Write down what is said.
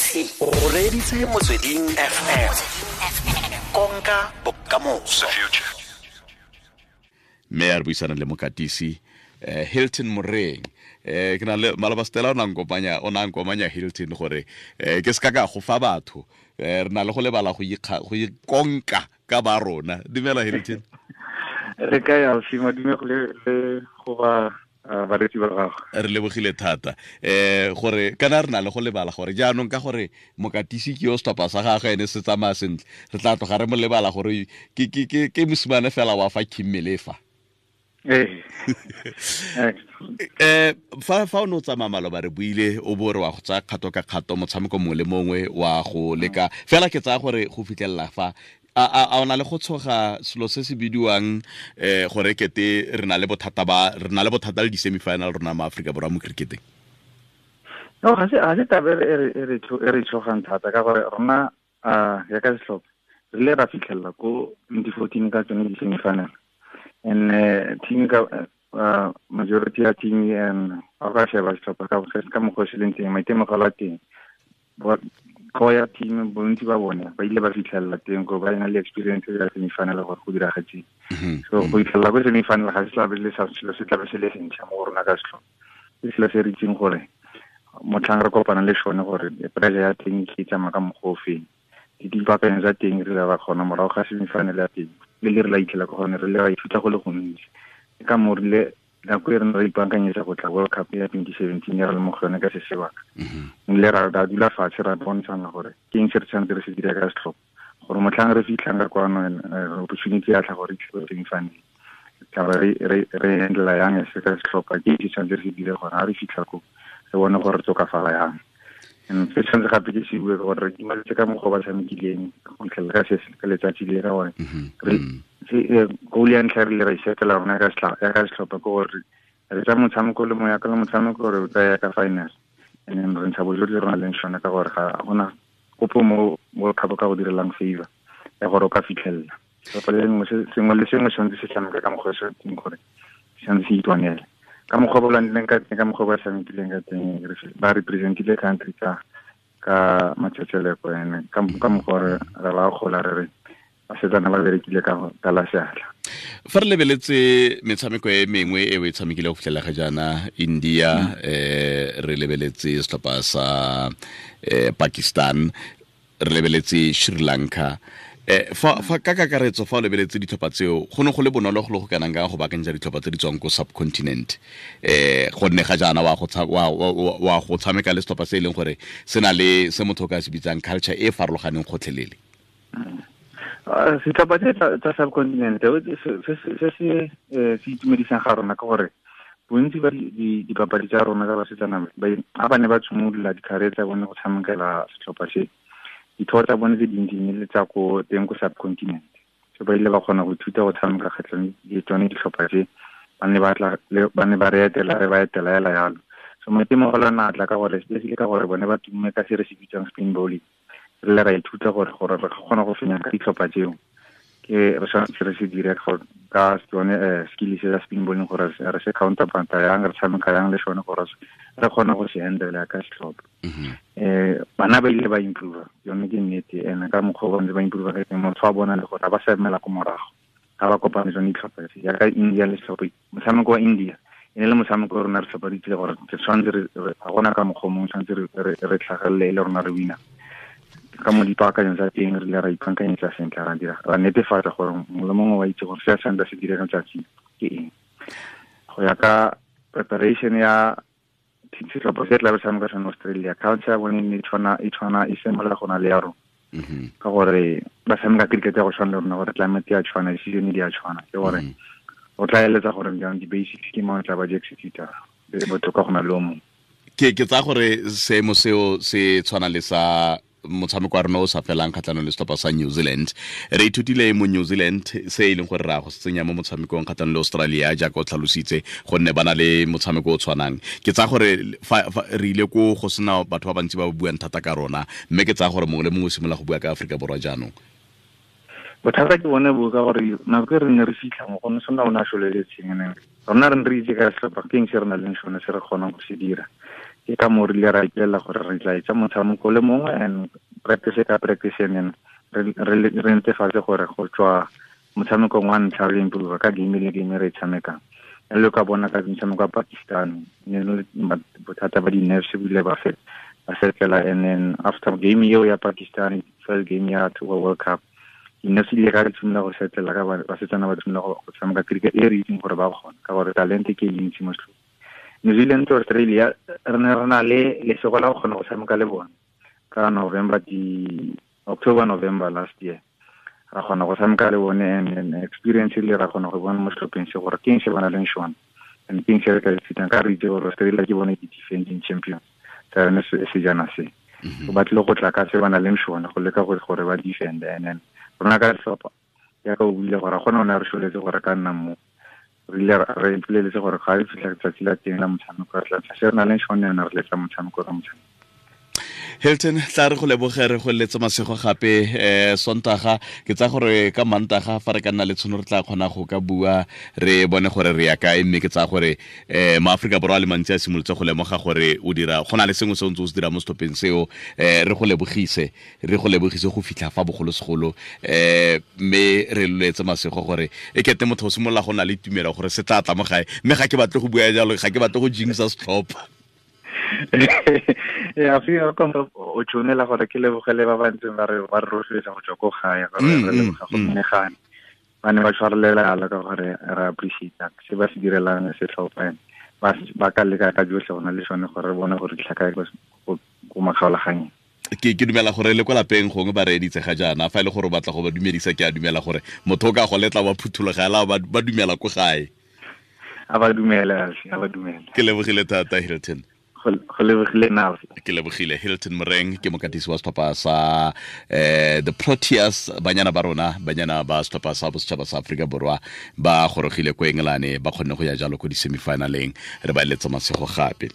O reditse Motsweding FM, konka bokamoso. Mme a re buisana le mokatisi Hilton Moreng. Ke na le maloba Stella, o na nkomanya Hilton gore ke se ka ka go fa batho. Re na le go lebala go ikonka ka ba rona. Dumela Hilton. Re ka ya sima, dume go le go ba baretsi ba gago. Re lebogile thata gore kana re na le go lebala gore jaanong ka gore mokatisi ke yo setlhopha sa gagwe ene se tsamaya sentle, re tla tloga re mo lebala gore ke mosimane fela wa fa Kimmelefa. Fa o ne o tsamaya maloba re buile o bo re wa go tsaya kgato ka kgato motshameko mongwe le mongwe wa go leka fela, ke tsaya gore go fitlhelela fa a o na le go tshoga selo se se bidiwang gore kete re na le bothata ba re na le bothata le di-semifinal rona mo Aforika Borwa mo cricketeng? No, ga se taba e re tshogang thata ka gore rona ya ka setlhopha re ile ra fitlhelela ko 2014 ka tsone di-semifinal, and team ka majority ya team and a ka sheba setlhopha ka mokgwa o se leng teng, maitemogelo a teng ko ya team, bontsi ba bone ba ile ba fitlhelela teng ko ba na le experience ya semifinal gore go diragetseng. So go fitlhelela ko semifinal ga se tlabe le sa selo se tlabe se le sentšha mo go rona ka setlhopha, ke selo se re itseng gore motlhang re kopana le sone gore pressure ya teng ke tsamaya ka mokgwa o feng, dipaakanyo tsa teng re ba kgona morago ga semifinal ya teng le le re la itlhela ko gone, re le ra ithuta go le gontsi. Ke ka moo rile nako e re ne re ipaakanyetsa go tla World Cup ya 2017 ya re le mo go yone ka se sebaka, le ra dula fatshe ra bontshana gore ke eng se re tshwanetse re se dira ka setlhopha gore motlhang re fitlhang ka kwano opportunity ya tla gore re itlhe semifinal, tla re handle yang se ka setlhopha, ke se tshwanetse re se dire gore ha re fitlha ko re bone gore re tokafala yang. And se tshwanetse gape ke se bue gore re itumetse ka mokgwa ba tshamekileng go fitlhelela ka se ka letsatsi le, ka gore goal ya ntlha re le ra isetela rona ya ka setlhopha ke gore re tsa motshameko le moya ka le motshameko gore o tsaya ka final, and then re ntsha bojotlhe rona leng sone ka gore ga gona kopo mo World Cup ka go direlang favor ya gore o ka fitlhelela. Sengwe le sengwe tshwanetse se tshameka ka mokgwa o se teng gore tshwanetse se itwanele ka mokgwa ba lwanileng ka teng, ka mokgwa ba tshamekileng ka teng, ba representile country ka matsetseleko, ene ka mokgwa re ba gola re re basetsana ba berekile ka la seatla. Fa re lebeletse metshameko e mengwe e o e tshamekile go fitlhela ga jaana, India, re lebeletse setlhopha sa Pakistan, re lebeletse Sri Lanka, fa ka kakaretso fa o lebeletse ditlhopha tseo, go ne go le bonolo go le go kanang ka go baakanyetsa ditlhopha tse di tswang ko subcontinent, gonne ga jaana wa go tshameka le setlhopha se e leng gore se na le se motho o ka se bitsang culture e farologaneng gotlhelele? Setlhopha se tsa subcontinent se se itumedisang ga rona ke gore bontsi ba dipapadi tsa rona ka basetsana ba ba ne ba tshimolola di-career tsa bone go tshamekela setlhopha se, dithoto tsa bone tse dintsi ne le tsa ko teng ko subcontinent, so ba ile ba kgona go ithuta go tshameka kgatlhanong le tsone ditlhopha tse, ba ne ba re etela, re ba etela hela yalo. So maitemogelo a na tla ka gore especially ka gore bone ba tumme ka se re se bitsang spin bowling, re le ra ithuta gore re kgona go fenya ka ditlhopha tseo, ke re tshwanetse re se dire ka tsone skill se sa spin bowling gore re se counterpart yang, re tshameka yang le sone gore re kgone go se handle ka setlhopha. Bana ba ile ba improve, yone ke nnete, ene ka mokgwa ba ntse ba improve ka teng, motho wa bona le gore ba sa emela ko morago ga ba kopane tsone ditlhopha tse jaaka India le setlhopha. Motshameko wa India e ne le motshameko o rona re tlhopha re itsile gore re tshwanetse ga gona ka mokgwa o mongwe, tshwanetse re tlhagelele e le rona re wina. Ka mo dipaakanyong tsa teng re ile ra ipaakanyetsa sentle, ra dira ra netefatsa gore mongwe le mongwe wa itse gore se a tshwanetse se dire ka letsatsi ke eng. Go ya ka preparation ya setlhopha se tla be tshameka sone Australia, culture ya bone e tshwana e similar go na le ya rona, ka gore ba tshameka cricket ya go tshwana le rona, gore climate ya tshwana, di-season di a tshwana, ke gore o tla eletsa gore jaanong di-basics ke mang o tla ba di executa botoka go na le o mongwe. Ke tsaya gore seemo seo se tshwana le sa motshameko wa rona o sa felang kgatlhanong le setlhopha sa New Zealand. Re ithutile mo New Zealand se e leng gore ra go se tsenya mo motshamekong kgatlhanong le Australia jaaka o tlhalositse, gonne ba na le motshameko o tshwanang. Ke tsaya gore fa re ile ko go sena batho ba bantsi ba ba buang thata ka rona, mme ke tsaya gore mongwe le mongwe o simolola go bua ka Aforika Borwa jaanong. Bothata ke bone bo ka gore nako e re ne re fitlha mo go ne sona o ne a soleletseng, ene rona re ne re itse ka setlhopha ke eng se re nang le sone se re kgonang go se dira. Ke ka mo rile ra ipelela gore re tla etsa motshameko le mongwe and practice ka practice, and re netefatse gore go tswa motshamekong wa ntlha re improve ka game le game re e tshamekang. Le ka bona ka motshameko wa Pakistan, ne le bothata ba di-nerves bile ba setlela, and then after game eo ya Pakistan, first game ya World Cup, di-nerves di ile ka di tshimolola go setlela, ka basetsana ba tshimolola go tshameka cricket e re itseng gore ba kgona, ka gore talente ke e ntsi mo setlhopheng. New Zealand to Australia, re ne re na le lesego la go kgona go tshameka le bone ka November, di October, November last year. Ra kgona go tshameka le bone, and experience le ra kgona go bona mo setlhopheng se gore ke eng se ba na leng sone and ke eng se re ka ithutang, ka re itse gore Australia ke bone di-defending champions tsa yone sejana se. So ba tlile go tla ka se ba na leng sone go leka gore ba defend, and then rona ka setlhopha jaaka o buile gore gona o ne a re soletse gore ka nna mo re ile re ipoleletse gore ga re fitlha letsatsi la teng la motshameko re tla se re na leng sone, re letsa motshameko ka motshameko. Hilton, tla re go leboge, re go letse masego gape Sontaga. Ke tsa gore ka Mantaga fa re ka nna le tshono re tla kgona go ka bua re bone gore re ya kae, mme ke tsa gore maAfrika Borwa a le mantsi a simolotse go lemoga gore o dira go na le sengwe se o ntse o se dira mo setlhopheng seo. Re go lebogise, re go lebogise go fitlha fa bogolosegolo, mme re letse masego gore e kete motho o simolola go na le tumelo gore se tla tla mo gae, mme ga ke batle go bua jalo, ga ke batle go jinxa setlhopha. Ya fi o tshwanela gore ke lebogele ba ba ntseng ba re rotloetsa go tswa ko gae, gore re leboga go menagane ba ne ba tshwarelela ala ka gore re appreciate se ba se direlang setlhopha, ba ka leka ka jotlhe go na le sone gore re bone gore ditlhaka ko makgaolaganyeng. Ke dumela gore le kwa lapeng gongwe ba reeditse ga jaana, fa e le gore o batla go ba dumedisa, ke a dumela gore motho o ka go letla wa phuthologela ba dumela ko gae. A ba dumela, a ba dumela. Ke lebogile thata Hilton. Go lebogile nna. Ke lebogile Hilton Moreng, ke mokatisi wa setlhopha sa the Proteas, banyana ba rona, banyana ba setlhopha sa bosetšhaba sa Aforika Borwa ba gorogile ko Engelane, ba kgonne go ya jalo ko di-semifinaleng. Re ba eletsa masego gape.